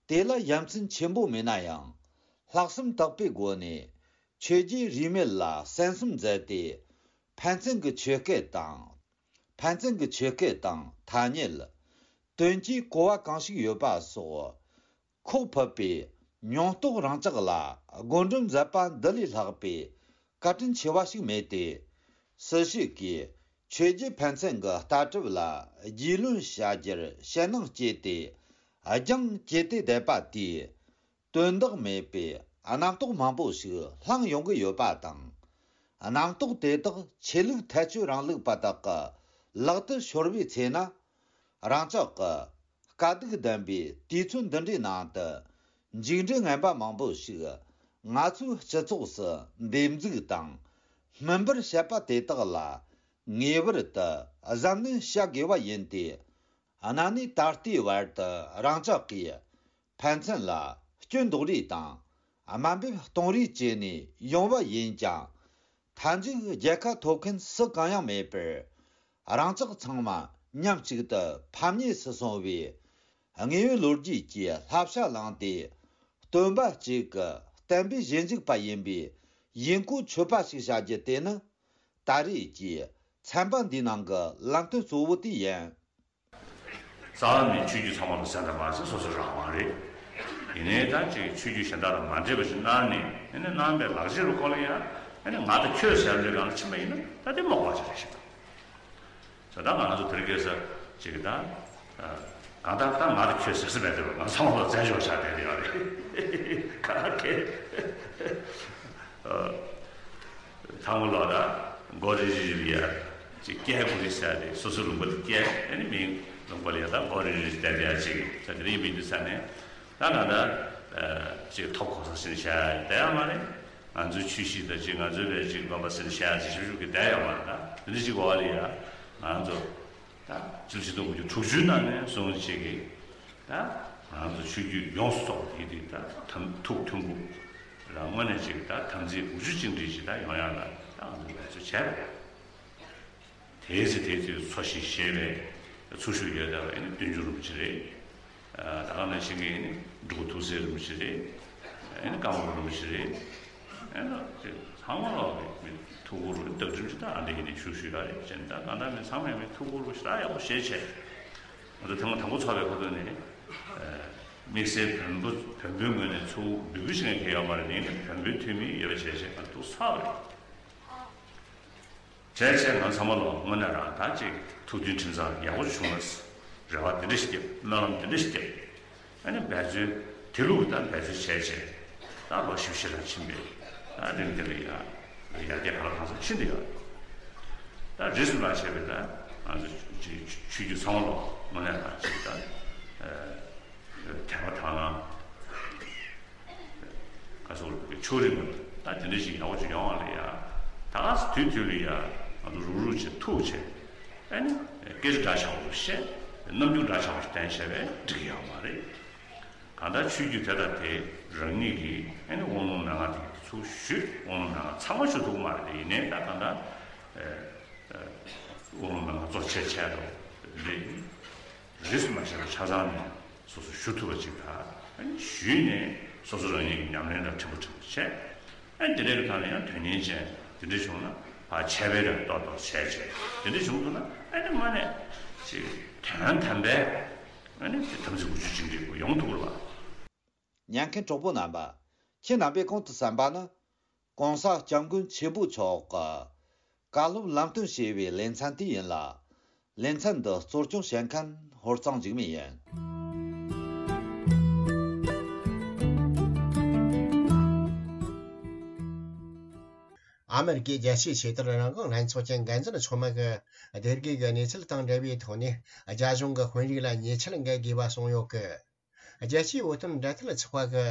དེ་ལ་ཡ་མཚན་ཆེན་པོ་མེད་ན་ཡང་། ལྷག་བསམ་དག་པའི་སྒོ་ནས་ཆོས་བརྒྱུད་རིས་མེད་ལ་གསན་བསམ་མཛད་དེ། ཕན་ཚུན་གྱི་ཆོས་སྐད་དང་། ཕན་ཚུན་གྱི་ཆོས་སྐད་དང་ཐ་སྙད། དོན་གྱི་གོ་བ་གང་ཞིག་ཡོད་པ་སོགས་ཁོག་ཕུད་པའི་མྱོང་རྟོག་རང་ཅག་ལ་བགོ་འགྲེམས་མཛད་པ་འདི་ལས་ལྷག་པའི་བཀའ་དྲིན་ཆེ་བ་ཞིག་མེད་དེ། སུ་ཞིག་གིས་ཆོས་བརྒྱུད་ཕན་ཚུན་གྱི་ལྟ་གྲུབ་ལ་རྒྱུས་ལོན་བྱ་རྒྱུར་ཞེད་སྣང་སྐྱེས་ཏེ། རྒྱང་བཀྱེད་དེ་བསྡད་པ་དེས། དོན་དག་མེད་པའི་རྣམ་རྟོག་མང་པོ་ཞིག་བསླངས་ཡོང་གི་ཡོད་པ་དང་། རྣམ་རྟོག་དེ་དག་ཆོས་ལུགས་ཐལ་སྤྱོད་རིང་ལུགས་པ་དག་གི་ལག་ཏུ་ཤོར་བའི་ཚེ་ན། རང་ཅག་གི་དཀའ་སྡུག་ལྡན་པའི་དུས་ཚོད་འདི་འདྲའི་ནང་དུ། མཇུག་འབྲས་ངན་པ་མང་པོ་ཞིག་ང་ཚོའི་སྤྱི་ཚོགས་སུ་འདེབས་འཛུགས་དང་སྨིན་པར་བྱེད་པ་དེ་དག་ལ་ངེས་པར་དུ་གཟབ་ནན་བྱ་དགོས་པ་ཡིན་ཏེ། གནའ་ནས་ད་ལྟའི་བར་དུ་རང་ཅག་གིས་ཕན་ཚུན་ལ་སྐྱོན་འདོགས་རེས་དང་དམའ་འབེབས་གཏོང་རེས་བྱས་ནས་ཡོང་བ་ཡིན་ཀྱང་། མཐའ་མཇུག་རྒྱལ་ཁ་ཐོབ་མཁན་སུ་གང་ཡང་མེད་པར། རང་ཅག་ཚང་མ་མཉམ་གཅིག་ཏུ་ཕམ་ཉེས་སུ་སོང་བའི་དངོས་ཡོད་ལོ་རྒྱུས་ཀྱི་བསླབ་བྱ་བླངས་ཏེ། སྟོན་པ་གཅིག་གི་བསྟན་པའི་ཞིབ་འཇུག་པ་ཡིན་པའི་ཡིན་གོ་ཆོད་པ་ཞིག་བྱ་རྒྱུ་དེ་ནི། ད་རེས་ཀྱི་ཚན་པ་འདིའི་ནང་གི་ལམ་སྟོན་གཙོ་བོ་དེ་ཡིན། རྩ་བ་ནས་ཆོས་བརྒྱུད་ཚང་མ་ལ་གསན་དང་མ་གསན་སོ་སོའི་རང་དབང་རེད། ཡིན་ནའི་ད་ཅིག་ཆོས་བརྒྱུད་གཞན་དག་དང་མ་འདྲེས་པ་ཞིག་གནང་ནས། ཨ་ནི་གནང་བའི་ལག་ཁྱེར་རུ་བཀོལ་ཡ། ཨ་ནི་ང་དང་ཁྱོད་ཟེར་འདྲའི་སྒང་ལ་ཕྱིན་པ་ཡིན་ན། ད་དེ་མ་དགོས་པ་ཅིག་རེད་ཤག་ད་ལྟ་ང་ཚོ་དེར་སྐད་ཆ་ཅིག་ད། གང་ལྟར་ད་ང་དང་ཁྱོད་ཟེར་ས་མེད་དེ། ང་ཚང་མ་ལ་བཙན་བྱོལ་ཆགས་བསྡད་ཡོད་རེད། ག་གེ། ཐང་མོ་ལོག་ད་མགོ་རིལ་རིལ་ཡ་ཅིག་སྐྱེལ་དགོས་རེད་ཟེར་ཏེ། སོ་སོའི་ལུང་པ་དེ་སྐྱེལ། ཨ་ནི་མིང་ལུང་པ་ལ་ཡ་ད་མགོ་རིལ་རིལ་བསྡད་ཡ་ཅིག་ད་དེ་རིང་མི་འདུག་ས་ནས། ད་ང་ད་ཅིག་ཐོབ་གོ་ས་ཟིན་བྱ་ཡ་བསྡད་ཡ་མ་རེད། ང་ཚོའི་ཆོས་གཞིས་དང་ཅིག་ང་ཚོའི་བས་ཅིག་དགོན་པ་ཟིན་བྱ་ཡ་ཅིག་ཞིབ་ཞིབ་ཀྱི་བསྡད་ཡ་མ་རེད། ད་དེ་འདྲ་ཅིག་གོ་བ་ལ་ཡ་ང་ཚོ་ད་སྤྱི་ལོ་ཆིག་སྟོང་དགུ་བརྒྱ་དྲུག་ཅུ་ནང་ནས་བཟུང་ཅིག་གིས། ད་ང་ཚོ་ཆོས་བརྒྱུད་ཡོངས་སུ་རྫོགས་པ་དེ་དེ་ད་དམ་ཐུགས་མཐུན་པོ་རང་ངོས་ནས་ཅིག་ད་དམ་ཚིག་དགུ་བཅུ་གཅིག་སྒྲིལ་ཅིག་ད་ཡོང་ཡ་ལ་ད་ང་ཚོ་འབད་རྩོལ་བྱས་པ་རེད། དེའི་ཚེ་དེའི་ཚེ་འཚོ་ཞིང་གཞེས་པའི་ཚུལ་ཞུགས་ཡོད་བསྡད་པ་ཨ་ནི་བསྟན་འགྱུར་རིན་པོ་ཆེ་རེད། ད་ག་ནང་བཞིན་གྱི་ཨ་ནི་འབྲུག་ཐུགས་སྲས་རིན་པོ་ཆེ་རེད། ཨ་ནི་ཀརྨ་རིན་པོ་ཆེ་རེད། ཨ་ནི་ཚང་མ་ལ་མི་ཐུགས་ཁུར་བརྡ་སྤྲོད་ཅིག་ད་ཨ་འདི་ཡིན་ནས་ཞུ་ཞུ་ཡ་རེད། བྱས་ན་ད་ག་ནང་མི་ཚང་མས་མི་ཐུགས་ཁུར་ཞེ་དྲག་ཡག་པོ་བཞེས་བྱས། ང་ཚོ་ཐེངས་མ་དང་པོ་ཚོགས་པའི་ཁ་ཐུག་ནས་དམིགས་བསལ་བོན་པོ་བོན་པོའི་ངོས་ནས་ཚུར་འབུལ་འབུལ་ཞིག་ངས་ཁྱེར་ཡོད་མ་རེད། ཡིན་ནའི་བོན་པོའི་འཐུས་མི་ཡོད་པ་བྱས་བྱས་ང་ཐུགས་ཚ་བ་རེད། བྱས་བྱས་ང་ཚང་མ་ལ་དངོས་གནས་རང་ད་ཅིག་ཐུགས་མཐུན་ཁྲིམས་གཙང་ཡག་པོ་བྱུང་ན། རེ་བ་དེ་འདྲ་ཞིག་བརྒྱབ། སྨོན་ལམ་དེ་འདྲ་ཞིག་བརྒྱབ། ཨ་ནི་འབད་རྩོལ་དེ་ལུགས་ད་འབད་རྩོལ་བྱས་བྱས་ད་ལོ་བཞི་བཅུ་ཞེ་གྲངས་ཕྱིན་པས་ད་རིང་འདི་ལ་ཡ་ཡར་རྒྱས་ག་ལ་གང་འཚམ་ཕྱིན་བསྡད་ཡོད་རེད། ད་རིས་སུ་མ་ཆད་པའི་ད་ ང་ཚོ་ཆོས་བརྒྱུད་ཚང་མ་ལོ་དངོས་གནས་ད་ཅིག་ད་དད་པ་དག་སྣང་ག་ཚོད་ཕྱོགས་རིས་མེད་པ་ད་དེ་འདྲ་ཞིག་ཡག་པོ་ཅིག་ཡོང་བ་ལ་ཡ། ད་ག་སེ་དུས་དུས་ལ་ཡ་ང་ཚོ་རུག་རུག་བྱེད་ཐུག་བྱེད། ཨ་ནི་སྐད་ཆ་འདྲ་ཆགས་པ་བཤད། རྣམ་འགྱུར་འདྲ་ཆགས་པ་ཞིག་བསྟན་བྱས་པས་འགྲིག་གི་ཡོད་མ་རེད། གང་ལྟར་ཆོས་བརྒྱུད་དེ་དང་དེ་རང་ཉིད་ཀྱིས་ཨ་ནི་དབང་ལུང་མན་ངག་དེ་ཚུར་ཞུས། དབང་ལུང་མན་ངག་ཚང་མ་ཞུ་ཐུབ་ཀྱི་མ་རེད་དེ། ཡིན་ནའི་ད་གང་ལྟར་དབང་ལུང་མན་ངག་གཙོ་ཆེ་ཆེ་རོ་རེད། རིས་སུ་མ་ཆད་པ་ཆ་ཚང་ནས་སོ་སོ་ཞུ་ཐུབ་པ་ཅིག་དང་ཨ་ནི་ཞུས་ནས་སོ་སོ་རང་ཉིད་ཀྱི་ཉམས་ལེན་ལ་ཕྲན་བུ་ཕྲན་བུ་བྱས། ཨ་ནི་དེ་འདྲའི་གི་ཐད་ལ་ཡང་དོན་གཉེར་ཅན་དེ་འདྲ་བྱུང་ན་ཕར་འཆད་སྤེལ་རེ་ཏོག་ཏོག་བྱས་བྱས་དེ་འདྲ་བྱུང་ཐུབ་ན་ཨ་ནི་དངོས་གནས་ཅིག་དོན་དམ་པའི་ཨ་ནི་དམ་ཚིག་དགུ་བཅུ་ཅན་འདྲ་པོ་ཡོང་ཐུབ་ཀྱི་རེད་པ། ཉན་མཁན་གྲོགས་པོ་རྣམ་པ། ཁྱེད་རྣམ་པས་གོང་དུ་གསན་པ་ནི། ༸གོང་ས་༸སྐྱབས་མགོན་ཆེན་པོ་མཆོག་གི་བཀའ་སློབ་ལམ་སྟོན་ཞེས་པའི་ལེ་ཚན་དེ་ཡིན་ལ། ལེ་ཚན་འདི་གཙོ་སྐྱོང་བྱེད་མཁན་ཧོར་གཙང་འཇིགས་མེད་ཡིན། ཨ་མེ་རི་ཀའི་རྒྱལ་སྤྱིའི་ཆེས་མཐོའི་རང་དབང་ལྷན་ཚོགས་ཀྱི་འགན་འཛིན་ཚོགས་མི་གིས་སྡེ་དགེ་གི་གནས་ཚུལ་དང་འབྲེལ་བའི་ཐོག་ནས། རྒྱ་གཞུང་གི་དཔོན་རིགས་ལ་ཉེས་ཆད་འགེལ་དགོས་པ་གསུངས་ཡོད་གི། རྒྱལ་སྤྱིའི་བོད་དོན་འབྲེལ་མཐུད་ཚོགས་པ་གི་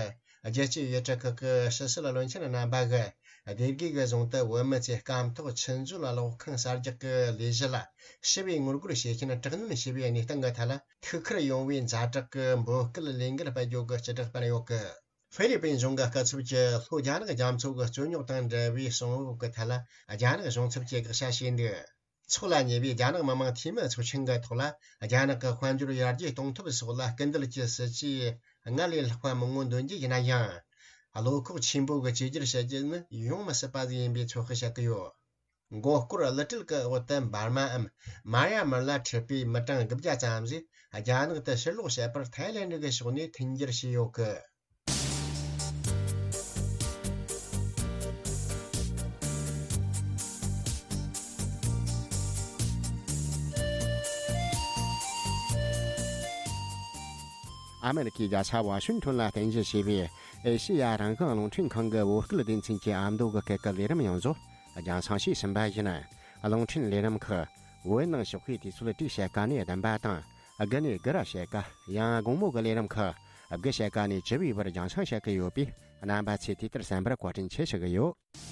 རྒྱལ་སྤྱིའི་ཡུལ་གྲུ་ཁག་གི་ཕྱི་སྲིད་བློན་ཆེན་རྣམ་པ་གིས་སྡེ་དགེ་གི་རྫོང་དུ་བོད་མི་ཚོའི་སྐམ་ཐོག་ཆུ་མཛོད་གློག་ཁང་གསར་རྒྱག་གི་ལས་གཞི་ལ་ཞི་བའི་ངོ་རྒོལ་བྱེད་མཁན་དྲག་གནོན་བྱས་པའི་གནས་སྟངས་ཀྱི་ཐད་ལ། ཐུགས་ཁུར་ཡོང་བའི་ཛ་དྲག་གི་འབོད་སྐུལ་ལས་འགུལ་སྤེལ་རྒྱུ་གི་སྤྱི་བསྒྲགས་སྤེལ་ཡོད་གི། ཧྥི་ལི་པིན་གཞུང་གི་སྐུ་ཚབ་ཀྱིས་ལྷོ་རྒྱ་ནག་རྒྱ་མཚོ་གི་རྩོད་རྙོག་དང་འབྲེལ་བའི་གསང་བབ་ཀྱི་ཐད་ལ་རྒྱ་ནག་གཞུང་ཚབ་ཀྱིས་དགག་བྱ་བྱས་འདུག། འཚོགས་ལ་ཉེ་བའི་རྒྱ་ནག་མི་དམངས་འཐུས་མི་ཚོགས་ཆེན་གྱི་ཐོག་ལ། རྒྱ་ནག་གི་དཔལ་འབྱོར་ཡར་རྒྱས་གཏོང་ཐབས་སོགས་ལ་སྐུལ་འདེད་ཀྱི་སྲིད་ཇུས་སྔར་ལས་ལྷག་པ་མང་བོ་འདོན་རྒྱུ་ཡིན་ན་ཡང་། བློ་ཁོག་ཆེན་པོ་གི་བཅོས་བསྒྱུར་བྱ་རྒྱུ་ནི་ཡོང་མི་སྲིད་པ་ཟིག་ཡིན་པའི་ཚོད་དཔག་བྱེད་ཀྱི་ཡོད། མགོ་སྐོར་གླུ་བྲིད་ཀྱི་འོག་ཏུ་འབར་མའམ་མ་ཡ་མར་ལ་འཁྲིད་པའི་མི་གྲངས་དགུ་བརྒྱ་ཙམ་ཞིག་རྒྱ་ནག་ཏུ་ཕྱིར་ལོག་བྱས་པར་ཐའི་ལེན་ཌི་གི་ཕྱོགས་ནས་མཐུན་འགྱུར་བྱས་ཡོད་གི། ཨ་མེ་རི་ཁའི་རྒྱལ་ས་ཝ་ཤིང་ཏོན་ལ་རྟེན་གཞི་བྱས་པའི་ཨེ་ཤེ་ཡ་རང་དབང་རླུང་འཕྲིན་ཁང་གི་བོད་སྐད་སྡེ་ཚན་གྱི་ཨ་མདོ་གི་སྐད་ཀྱི་ལས་རིམ་ཡང་བཟོ་རྒྱང་སྲིང་བྱས་ཟིན་པ་ཡིན། རླུང་འཕྲིན་ལས་རིམ་ཁག་བོད་ནང་ཞོགས་པའི་དུས་ཚོད་དྲུག་ཕྱེད་ཀ་ནས་བདུན་པ་དང་། དགུ་ནས་དགུ་ར་ཕྱེད་ཀ། ཡང་དགོང་མོ་གི་ལས་རིམ་ཁག་དགུ་ཕྱེད་ཀ་ནས་བཅུ་པའི་བར་རྒྱང་སྲིང་བྱེད་ཀྱི་ཡོད་པས། རྣམ་པ་ཚོས་དུས་ལྟར་གསན་པར་བཀའ་དྲིན་ཆེ་ཞུ་གི་ཡོད།